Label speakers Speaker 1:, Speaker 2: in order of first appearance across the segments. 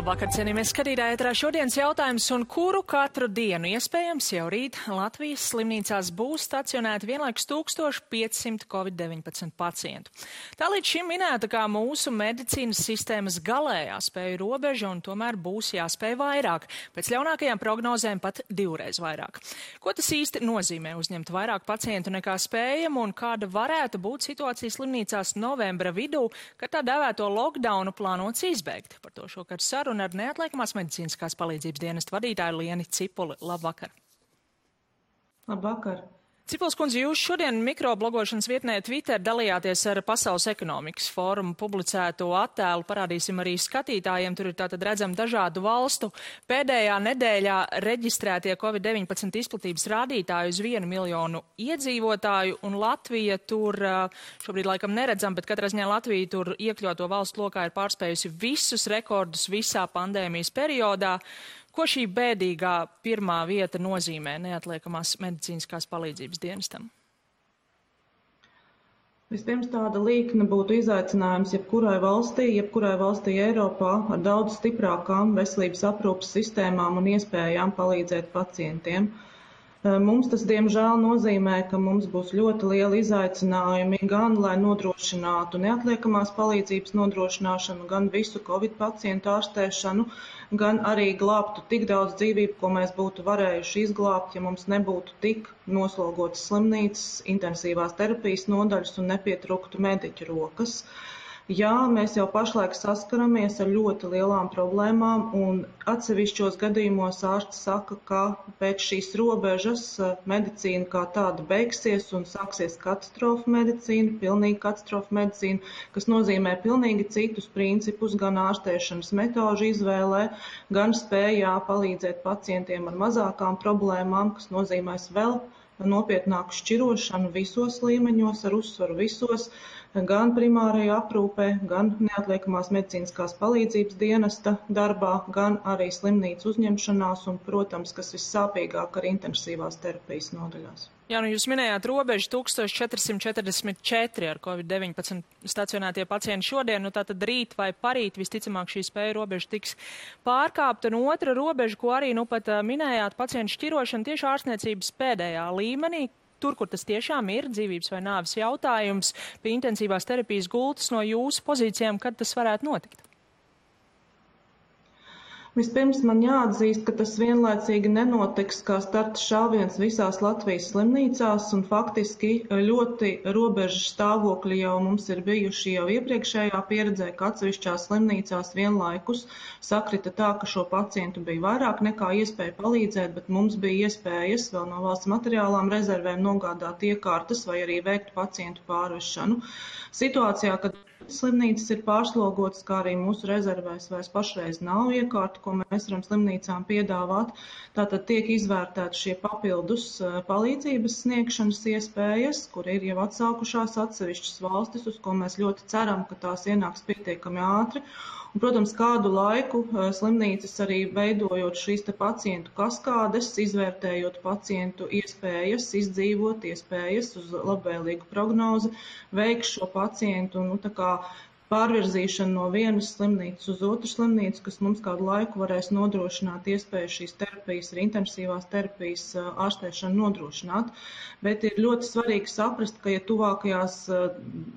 Speaker 1: Labvakar, cienījamies skatītāji, ētrā šodienas jautājums, un kuru katru dienu iespējams jau rīt Latvijas slimnīcās būs stacionēti vienlaikus 1500 Covid-19 pacientu. Tā līdz šim minēta kā mūsu medicīnas sistēmas galējā spēju robeža, un tomēr būs jāspēj vairāk. Pēc ļaunākajām prognozēm pat divreiz vairāk. Ko tas īsti nozīmē uzņemt vairāk pacientu nekā spējam, un kāda varētu būt situācija slimnīcās novembra vidū, kad tā dēvēto lockdownu plānots izbeigt? Par to šokar saruna ar neatliekamās medicīniskās palīdzības dienesta vadītāju Lieni Cipuli. Labvakar!
Speaker 2: Labvakar!
Speaker 1: Cipuls kundze, jūs šodien mikroblogošanas vietnē Twitter dalījāties ar Pasaules ekonomikas fórumu publicēto attēlu. Parādīsim arī skatītājiem. Tur ir tātad redzam dažādu valstu pēdējā nedēļā reģistrētie Covid-19 izplatības rādītāji uz 1 miljonu iedzīvotāju, un Latvija tur šobrīd laikam neredzam, bet katrā ziņā Latvija tur iekļauto valstu lokā ir pārspējusi visus rekordus visā pandēmijas periodā. Ko šī bēdīgā pirmā vieta nozīmē neatliekamās medicīniskās palīdzības dienestam?
Speaker 2: Vispirms tāda līkne būtu izaicinājums jebkurai valstī Eiropā ar daudz stiprākām veselības aprūpes sistēmām un iespējām palīdzēt pacientiem. Mums tas, diemžēl, nozīmē, ka mums būs ļoti lieli izaicinājumi gan, lai nodrošinātu neatliekamās palīdzības nodrošināšanu, gan visu Covid pacientu ārstēšanu, gan arī glābtu tik daudz dzīvību, ko mēs būtu varējuši izglābt, ja mums nebūtu tik noslogotas slimnīcas, intensīvās terapijas nodaļas un nepietrūktu mediķu rokas. Jā, mēs jau pašlaik saskaramies ar ļoti lielām problēmām, un atsevišķos gadījumos ārsti saka, ka pēc šīs robežas medicīna kā tāda beigsies un sāksies katastrofa medicīna, pilnīga katastrofa medicīna, kas nozīmē pilnīgi citus principus gan ārstēšanas metožu izvēlē, gan spējā palīdzēt pacientiem ar mazākām problēmām, kas nozīmēs vēl nopietnāku šķirošanu visos līmeņos, ar uzsvaru visos, gan primārajā aprūpē, gan neatliekamās medicīniskās palīdzības dienesta darbā, gan arī slimnīcu uzņemšanās un, protams, kas vissāpīgāk ar intensīvās terapijas nodaļās.
Speaker 1: Jā, nu jūs minējāt robežu 1444 ar Covid-19 stacionētie pacienti šodien, nu tātad rīt vai parīt visticamāk šī spēja robeža tiks pārkāpta, un otra robeža, ko arī nu pat minējāt, pacientu šķirošana tieši ārstniecības pēdējā līmenī. Tur, kur tas tiešām ir dzīvības vai nāves jautājums, pie intensīvās terapijas gultas no jūsu pozīcijām, kad tas varētu notikt?
Speaker 2: Vispirms man jāatzīst, ka tas vienlaicīgi nenotiks kā starta šāviens visās Latvijas slimnīcās, un faktiski ļoti robežas stāvokļi jau mums ir bijuši jau iepriekšējā pieredzē, ka atsevišķās slimnīcās vienlaikus sakrita tā, ka šo pacientu bija vairāk nekā iespēja palīdzēt, bet mums bija iespējas vēl no valsts materiālām rezervēm nogādāt iekārtas vai arī veikt pacientu pārvešanu. Situācijā, kad slimnīcas ir pārslogotas, kā arī mūsu rezervēs vairs pašreiz nav iekārta, ko mēs varam slimnīcām piedāvāt. Tātad tiek izvērtēti šie papildus palīdzības sniegšanas iespējas, kur ir jau atsākušās atsevišķas valstis, uz ko mēs ļoti ceram, ka tās ienāks pietiekami ātri. Un, protams, kādu laiku slimnīcas arī veidojot šīs te pacientu kaskādes, izvērtējot pacientu iespējas, izdzīvot iespējas uz labvēlīgu prognozi, veiks šo pacientu un tā kā pārvirzīšanu no vienas slimnīcas uz otru slimnīcu, kas mums kādu laiku varēs nodrošināt iespēju šīs terapijas, arī intensīvās terapijas ārstēšanu nodrošināt. Bet ir ļoti svarīgi saprast, ka ja tuvākajās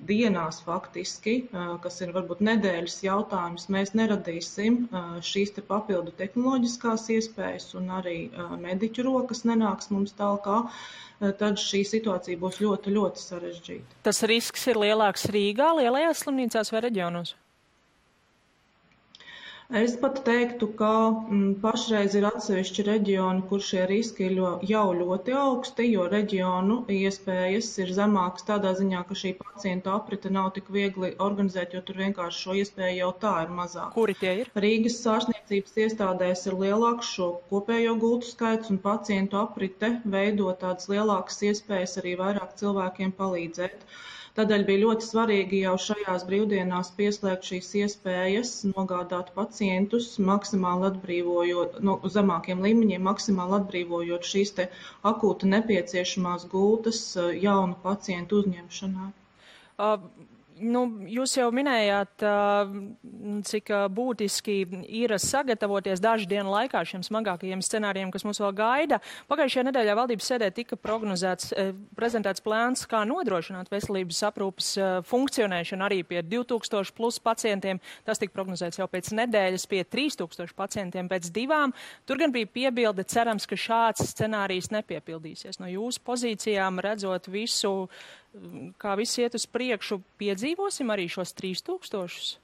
Speaker 2: dienās faktiski, kas ir varbūt nedēļas jautājums, mēs neradīsim šīs te papildu tehnoloģiskās iespējas un arī mediķu rokas nenāks mums tālāk, tad šī situācija būs ļoti, ļoti sarežģīta.
Speaker 1: Tas risks ir lielāks Rīgā, lielajās slimnīcās vai reģionos?
Speaker 2: Es pat teiktu, ka pašreiz ir atsevišķi reģioni, kur šie riski ir jau ļoti augsti, jo reģionu iespējas ir zemākas tādā ziņā, ka šī pacientu aprite nav tik viegli organizēt, jo tur vienkārši šo iespēju jau tā ir mazāk.
Speaker 1: Kuri tie ir?
Speaker 2: Rīgas ārstniecības iestādēs ir lielāks šo kopējo gultu skaits un pacientu aprite veido tādas lielākas iespējas arī vairāk cilvēkiem palīdzēt. Tādēļ bija ļoti svarīgi jau šajās brīvdienās pieslēgt šīs iespējas, nogādāt pacientus, maksimāli atbrīvojot, no zemākiem līmeņiem, maksimāli atbrīvojot šīs te akūti nepieciešamās gultas jaunu pacientu uzņemšanai.
Speaker 1: Jūs jau minējāt, cik būtiski ir sagatavoties dažu dienu laikā šiem smagākajiem scenārijiem, kas mūs vēl gaida. Pagājušajā nedēļā valdības sēdē tika prezentēts plāns, kā nodrošināt veselības aprūpes funkcionēšanu arī pie 2000 plus pacientiem. Tas tika prognozēts jau pēc nedēļas pie 3000 pacientiem pēc 2. Tur gan bija piebilde, cerams, ka šāds scenārijs nepiepildīsies. No jūsu pozīcijām redzot visu, kā viss iet uz priekšu, piedzīvosim arī šos 3000?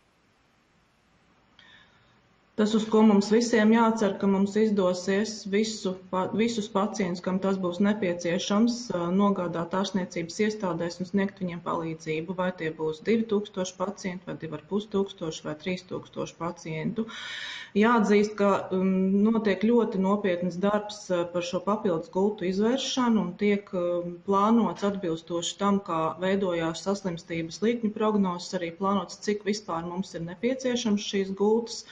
Speaker 2: Tas, uz ko mums visiem jācer, ka mums izdosies visus pacientus, kam tas būs nepieciešams, nogādāt ārstniecības iestādēs un sniegt viņiem palīdzību, vai tie būs 2000 pacientu, vai 2500 vai 3000 pacientu. Jāatzīst, ka notiek ļoti nopietnas darbs par šo papildus gultu izvēršanu un tiek plānots atbilstoši tam, kā veidojās saslimstības līkņu prognozes, arī plānots, cik vispār mums ir nepieciešams šīs gultas.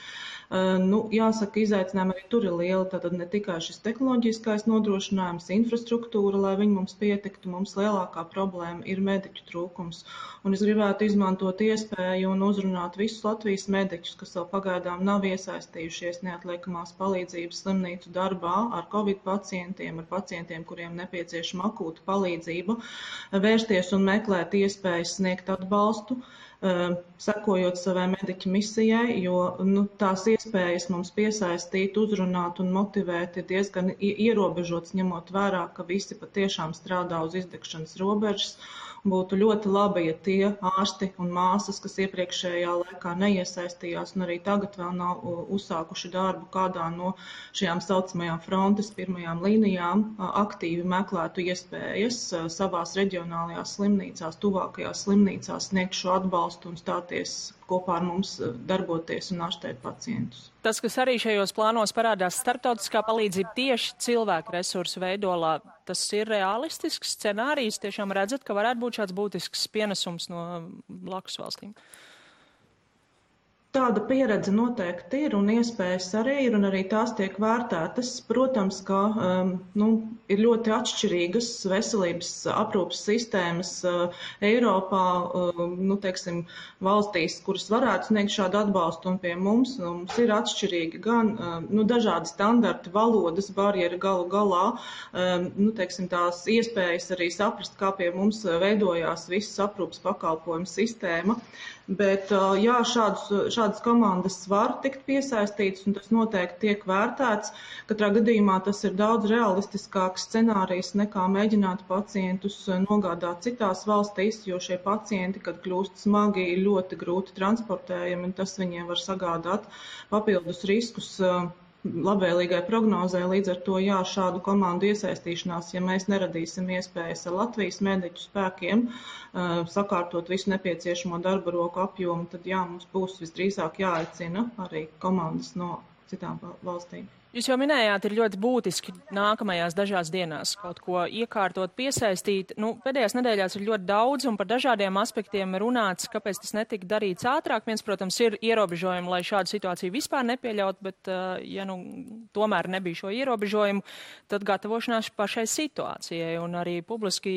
Speaker 2: Jāsaka, izaicinājumi arī tur ir lieli, tātad ne tikai šis tehnoloģiskais nodrošinājums, infrastruktūra, lai viņi mums pietiktu, mums lielākā problēma ir mediķu trūkums. Un es gribētu izmantot iespēju un uzrunāt visus Latvijas mediķus, kas vēl pagaidām nav iesaistījušies neatliekamās palīdzības slimnīcu darbā ar Covid pacientiem, ar pacientiem, kuriem nepieciešama akūta palīdzība, vērsties un meklēt iespējas sniegt atbalstu, sekojot savai mediķa misijai, jo tās iespējas mums piesaistīt, uzrunāt un motivēt ir diezgan ierobežots, ņemot vērā, ka visi patiešām strādā uz izdegšanas robežas. Būtu ļoti labi, ja tie ārsti un māsas, kas iepriekšējā laikā neiesaistījās un arī tagad vēl nav uzsākuši darbu kādā no šajām saucamajām frontes pirmajām līnijām, aktīvi meklētu iespējas savās reģionālajās slimnīcās, tuvākajās slimnīcās sniegt šo atbalstu un stāties kopā ar mums, darboties un ārstēt pacientus.
Speaker 1: Tas, kas arī šajos plānos parādās, starptautiskā palīdzība tieši cilvēku resursu veidolā, tas ir realistisks scenārijs. Tiešām redzat, ka varētu būt šāds būtisks pienesums no blakus valstīm.
Speaker 2: Tāda pieredze noteikti ir un iespējas arī ir, un arī tās tiek vērtētas. Protams, ka ir ļoti atšķirīgas veselības aprūpes sistēmas Eiropā, valstīs, kuras varētu sniegt šādu atbalstu, un pie mums ir atšķirīgi gan dažādi standarti, valodas barjeri galu galā, tās iespējas arī saprast, kā pie mums veidojās visas aprūpes pakalpojumu sistēma. Bet jā, šādas komandas var tikt piesaistītas, un tas noteikti tiek vērtēts. Katrā gadījumā tas ir daudz realistiskāks scenārijs nekā mēģināt pacientus nogādāt citās valstīs, jo šie pacienti, kad kļūst smagi, ir ļoti grūti transportējami, un tas viņiem var sagādāt papildus riskus labvēlīgai prognozē. Līdz ar to, jā, šādu komandu iesaistīšanās, ja mēs neradīsim iespējas ar Latvijas mediķu spēkiem sakārtot visu nepieciešamo darba roku apjomu, tad jā, mums būs visdrīzāk jāaicina arī komandas no citām valstīm.
Speaker 1: Jūs jau minējāt, ir ļoti būtiski nākamajās dažās dienās kaut ko iekārtot, piesaistīt. Pēdējās nedēļās ir ļoti daudz un par dažādiem aspektiem runāts, kāpēc tas netika darīts ātrāk. Viens, protams, ir ierobežojumi, lai šādu situāciju vispār nepieļaut, bet ja tomēr nebija šo ierobežojumu, tad gatavošanās pašai situācijai. Un arī publiski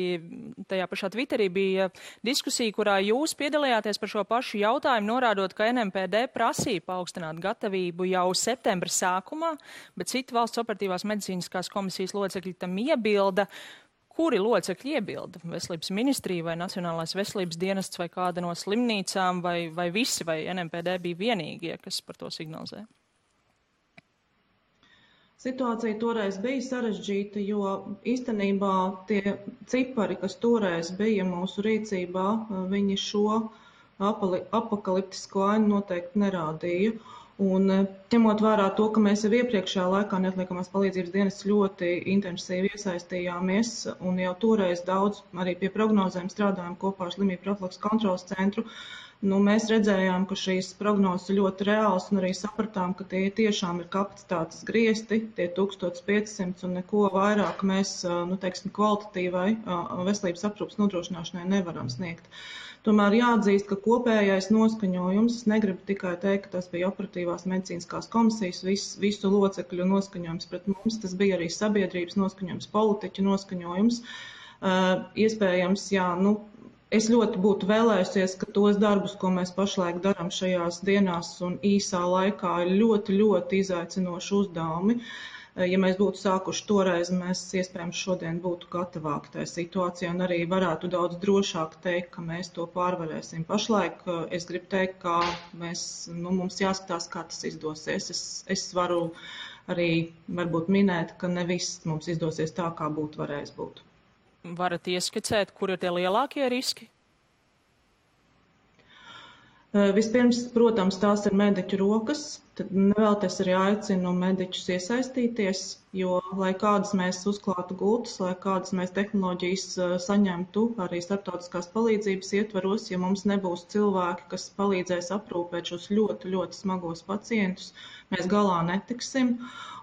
Speaker 1: tajā pašā Twitterī bija diskusija, kurā jūs piedalījāties par šo pašu jautājumu, norādot, ka NMPD prasīja paaugstināt gatavību jau septembra sākumā, bet citi valsts operatīvās medicīniskās komisijas locekļi tam iebilda. Kuri locekļi iebilda? Veselības ministrija vai Nacionālais veselības dienests vai kāda no slimnīcām vai visi, vai NMPD bija vienīgie, kas par to signalizē?
Speaker 2: Situācija toreiz bija sarežģīta, jo īstenībā tie cipari, kas toreiz bija mūsu rīcībā, viņi šo apokaliptisko ainu noteikti nerādīja. Un ņemot vērā to, ka mēs jau iepriekšējā laikā neatliekamās palīdzības dienas ļoti intensīvi iesaistījāmies un jau toreiz daudz arī pie prognozēm strādājām kopā ar Slimību profilakses kontroles centru, mēs redzējām, ka šīs prognozes ir ļoti reāls un arī sapratām, ka tie tiešām ir kapacitātes griezti, tie 1500 un neko vairāk mēs, kvalitatīvai veselības aprūpes nodrošināšanai nevaram sniegt. Tomēr jāatzīst, ka kopējais noskaņojums, es negribu tikai teikt, ka tas bija operatīvās medicīniskās komisijas, visu locekļu noskaņojums pret mums, tas bija arī sabiedrības noskaņojums, politiķu noskaņojums. Iespējams, jā, Es ļoti būtu vēlējusies, ka tos darbus, ko mēs pašlaik darām šajās dienās un īsā laikā, ir ļoti, ļoti izaicinoši uzdevumi. Ja mēs būtu sākuši toreiz, mēs iespējams šodien būtu gatavāki tajā situācijā un arī varētu daudz drošāk teikt, ka mēs to pārvarēsim. Pašlaik es gribu teikt, ka mums jāskatās, kā tas izdosies. Es varu arī varbūt minēt, ka ne viss mums izdosies tā, kā būtu varējis būt.
Speaker 1: Varat ieskicēt, kur ir tie lielākie riski?
Speaker 2: Vispirms, protams, tās ir mediķu rokas, tad vēl es arī aicinu mediķus iesaistīties, jo, lai kādas mēs uzklātu gultas, lai kādas mēs tehnoloģijas saņemtu arī starptautiskās palīdzības ietvaros, ja mums nebūs cilvēki, kas palīdzēs aprūpēt šos ļoti, ļoti smagos pacientus, mēs galā netiksim.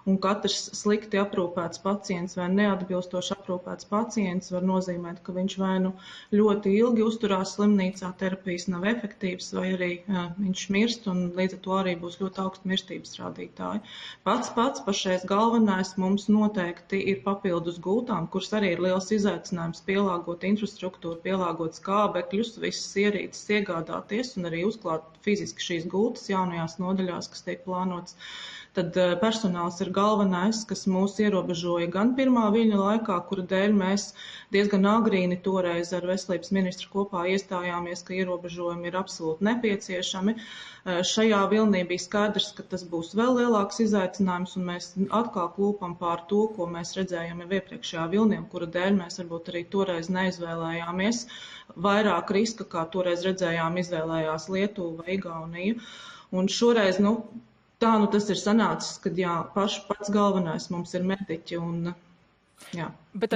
Speaker 2: Un katrs slikti aprūpēts pacients vai neatbilstoši aprūpēts pacients var nozīmēt, ka viņš vai nu ļoti ilgi uzturās slimnīcā, terapijas nav efektīvas, vai arī viņš mirst, un līdz ar to arī būs ļoti augsti mirstības rādītāji. Pats pašreiz galvenais mums noteikti ir papildus gultām, kuras arī ir liels izaicinājums pielāgot infrastruktūru, pielāgot skābekļus, visas ierīces iegādāties un arī uzklāt fiziski šīs gultas jaunajās nodaļās, kas tiek plānots. Tad personāls ir galvenais, kas mūs ierobežoja gan pirmā viļņa laikā, kura dēļ mēs diezgan agrīni toreiz ar veselības ministru kopā iestājāmies, ka ierobežojumi ir absolūti nepieciešami. Šajā vilnī bija skaidrs, ka tas būs vēl lielāks izaicinājums, un mēs atkal klūpam pār to, ko mēs redzējām jau iepriekšējā vilnī, kura dēļ mēs varbūt arī toreiz neizvēlējāmies. Vairāk riska, kā toreiz redzējām, izvēlējās Lietuva vai Igaunija. Un šoreiz, tā tas ir sanācis, kad pats galvenais mums ir mediķi, un ja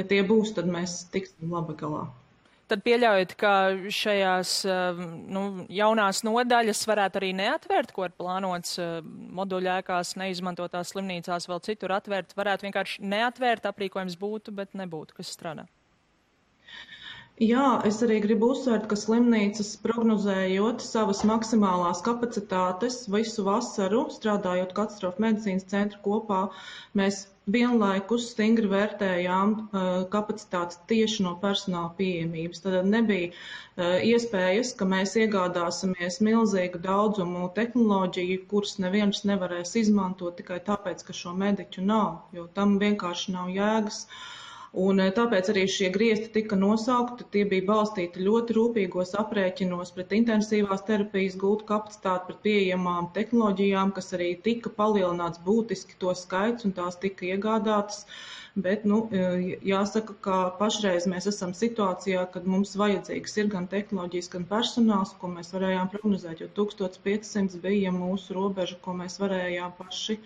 Speaker 2: tie būs, tad mēs tiksim labi galā.
Speaker 1: Tad pieļaujat, ka šajās jaunās nodaļas varētu arī neatvērt, ko ir plānots moduļēkās, neizmantotās slimnīcās, vēl citur atvērt, varētu vienkārši neatvērt, aprīkojums būtu, bet nebūtu, kas strādā?
Speaker 2: Jā, es arī gribu uzsvērt, ka slimnīcas prognozējot savas maksimālās kapacitātes visu vasaru, strādājot katastrofu medicīnas centru kopā, mēs vienlaikus stingri vērtējām kapacitātes tieši no personāla pieejamības. Tad nebija iespējas, ka mēs iegādāsimies milzīgu daudzumu tehnoloģiju, kuras neviens nevarēs izmantot tikai tāpēc, ka šo mediķu nav, jo tam vienkārši nav jēgas. Un tāpēc arī šie griezti tika nosaukti, tie bija balstīti ļoti rūpīgos aprēķinos pret intensīvās terapijas gultu kapacitāti, pret pieejamām tehnoloģijām, kas arī tika palielināts būtiski to skaits un tās tika iegādātas. Bet, jāsaka, ka pašreiz mēs esam situācijā, kad mums vajadzīgs ir gan tehnoloģijas, gan personāls, ko mēs varējām prognozēt, jo 1500 bija mūsu robeža, ko mēs varējām paši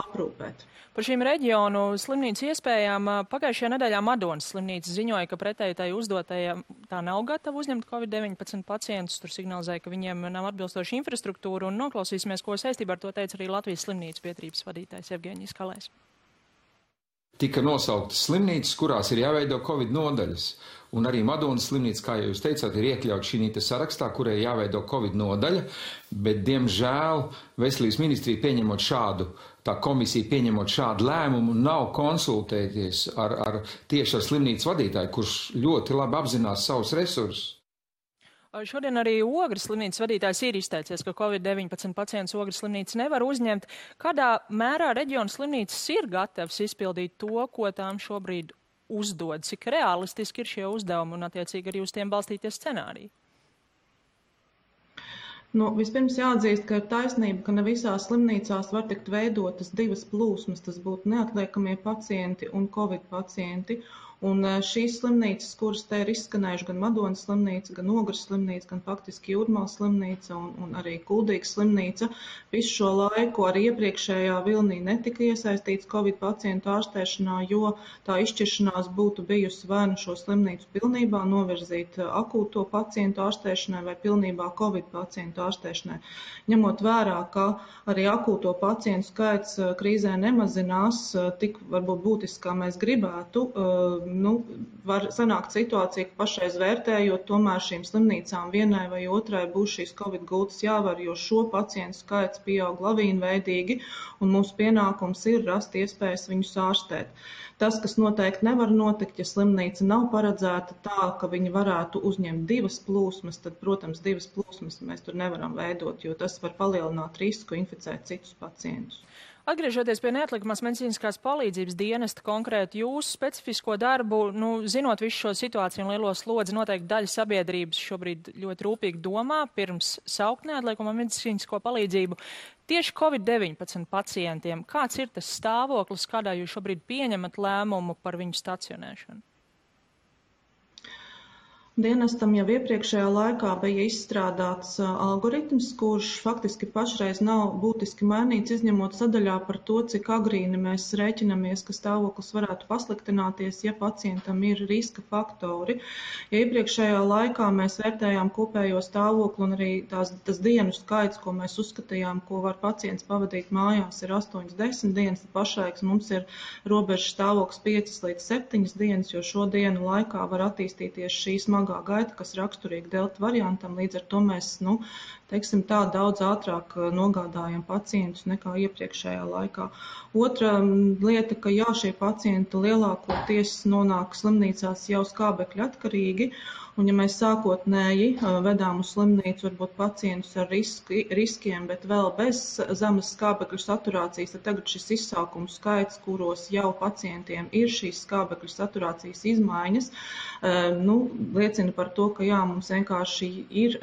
Speaker 2: aprūpēt.
Speaker 1: Par šīm reģionu slimnīcu iespējām pagājušajā nedēļā Madonas slimnīca ziņoja, ka pretēji tai uzdotajā tā nav gatava uzņemt COVID-19 pacientus. Tur signalizēja, ka viņiem nav atbilstoša infrastruktūra, un noklausīsimies, ko saistībā ar to teica arī Latvijas slimnīcu biedrības vadītājs Evgeņijs Kalējs.
Speaker 3: Tika nosauktas slimnīcas, kurās ir jāveido Covid nodaļas. Un arī Madonas slimnīca, kā jūs teicāt, ir iekļauts šī sarakstā, kurai jāveido Covid nodaļa, bet, diemžēl, Veselības ministrija pieņemot šādu, tā komisija pieņemot šādu lēmumu, nav konsultēties tieši ar slimnīcas vadītāju, kurš ļoti labi apzinās savus resursus.
Speaker 1: Šodien arī Ogres slimnīcas vadītājs ir izteicies, ka COVID-19 pacients Ogres slimnīca nevar uzņemt. Kādā mērā reģiona slimnīcas ir gatavs izpildīt to, ko tām šobrīd uzdod? Cik realistiski ir šie uzdevumi un attiecīgi arī uz tiem balstīties scenāriji?
Speaker 2: Vispirms jāatzīst, ka ir taisnība, ka ne visās slimnīcās var tikt veidotas divas plūsmas. Tas būtu neatliekamie pacienti un Covid pacienti. Un šīs slimnīcas, kuras te ir izskanējuši, gan Madonas slimnīca, gan Ogres slimnīca, gan faktiski Jūrmālas slimnīca un arī Kuldīgas slimnīca, visu šo laiku arī iepriekšējā vilnī netika iesaistīts Covid pacientu ārstēšanā, jo tā izšķiršanās būtu bijusi vai nu šo slimnīcu pilnībā novirzīt akūto pacientu ārstēšanai vai pilnībā Covid pacientu ārstēšanai. Ņemot vērā, ka arī akūto pacientu skaits krīzē nemazinās tik varbūt būtiski, kā mēs gribētu, var sanākt situācija, ka pašreiz vērtējot, tomēr šīm slimnīcām vienai vai otrai būs šīs Covid gultas jāvar, jo šo pacientu skaits pieaug lavīnveidīgi, un mūsu pienākums ir rast iespējas viņus ārstēt. Tas, kas noteikti nevar notikt, ja slimnīca nav paredzēta tā, ka viņi varētu uzņemt 2 plūsmas, tad, protams, 2 plūsmas mēs tur nevaram veidot, jo tas var palielināt risku inficēt citus pacientus.
Speaker 1: Atgriežoties pie neatliekamās medicīniskās palīdzības dienesta, konkrēti jūsu specifisko darbu, zinot visu šo situāciju un lielo slodzi, noteikti daļa sabiedrības šobrīd ļoti rūpīgi domā pirms saukt neatliekamo medicīnisko palīdzību. Tieši Covid-19 pacientiem, kāds ir tas stāvoklis, kādā jūs šobrīd pieņemat lēmumu par viņu stacionēšanu?
Speaker 2: Dienestam jau iepriekšējā laikā bija izstrādāts algoritms, kurš faktiski pašreiz nav būtiski mainīts, izņemot sadaļā par to, cik agrīni mēs rēķinamies, ka stāvoklis varētu pasliktināties, ja pacientam ir riska faktori. Ja iepriekšējā laikā mēs vērtējām kopējo stāvokli un arī tas dienu skaits, ko mēs uzskatījām, ko var pacients pavadīt mājās, ir 8-10 dienas, tad pašlaik mums ir robežas stāvoklis 5 līdz 7 dienas, jo šo dienu laikā var attīstīties šī smagā gaita, kas raksturīga delta variantam, līdz ar to mēs, teiksim tā, daudz ātrāk nogādājam pacientus nekā iepriekšējā laikā. Otra lieta, ka šie pacienti lielākoties nonāk slimnīcās jau skābekļa atkarīgi, un ja mēs sākotnēji vedām uz slimnīcu varbūt pacientus ar riskiem, bet vēl bez zemes skābekļu saturācijas, tad tagad šis izsākumu skaits, kuros jau pacientiem ir šīs skābekļu saturācijas izmaiņas, liecina par to, ka mums vienkārši ir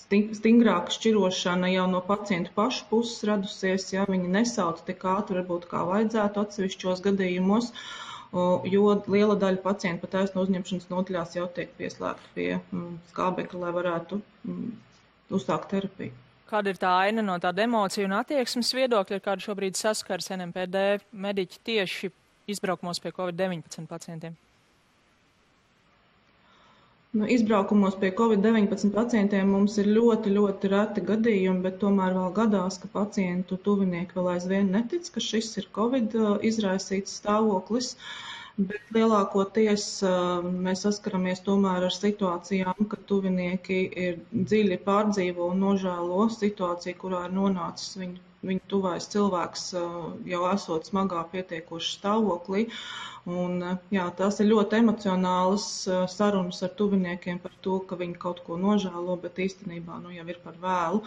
Speaker 2: stingrāka šķirošana jau no pacientu pašu puses radusies, ja viņi nesauc tik ātri, varbūt kā vajadzētu atsevišķos gadījumos, jo liela daļa pacientu pat taisno uzņemšanas nodaļās jau tiek pieslēgta pie skābekļa, lai varētu uzsākt terapiju.
Speaker 1: Kāda ir tā aina no tāda emociju un attieksmes viedokļa, ar kādu šobrīd saskars NMPD mediķi tieši izbraukumos pie Covid-19 pacientiem?
Speaker 2: Izbraukumos pie Covid-19 pacientiem mums ir ļoti, ļoti reti gadījumi, bet tomēr vēl gadās, ka pacientu tuvinieki vēl aizvien netic, ka šis ir Covid izraisīts stāvoklis, bet lielākoties mēs saskaramies tomēr ar situācijām, ka tuvinieki ir dziļi pārdzīvo un nožēlo situāciju, kurā ir nonācis viņu tuvais cilvēks jau esot smagā pietiekoši stāvoklī. Un, tās ir ļoti emocionālas sarunas ar tuviniekiem par to, ka viņi kaut ko nožēlo, bet īstenībā jau ir par vēlu.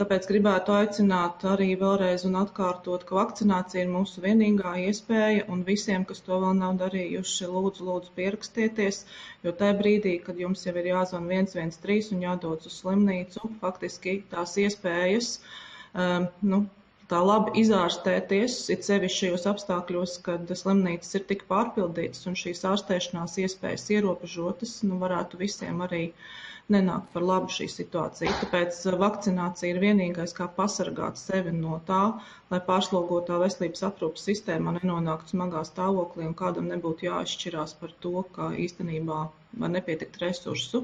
Speaker 2: Tāpēc gribētu aicināt arī vēlreiz un atkārtot, ka vakcinācija ir mūsu vienīgā iespēja, un visiem, kas to vēl nav darījuši, lūdzu pierakstieties, jo tajā brīdī, kad jums jau ir jāzvan 113 un jādodas uz slimnīcu, faktiski tās iespējas tā labi izārstēties, it sevišķi šajos apstākļos, kad slimnīcas ir tik pārpildītas un šīs ārstēšanās iespējas ierobežotas, varētu visiem arī nenākt par labu šī situācija. Tāpēc vakcinācija ir vienīgais, kā pasargāt sevi no tā, lai pārslogotā veselības aprūpes sistēmā nenonāktu smagā stāvoklī un kādam nebūtu jāizšķirās par to, ka īstenībā var nepietikt resursu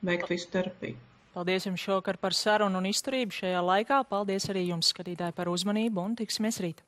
Speaker 2: veikt visu terapiju.
Speaker 1: Paldies jums šovakar par sarunu un izturību šajā laikā. Paldies arī jums, skatītāji, par uzmanību un tiksimies rīt.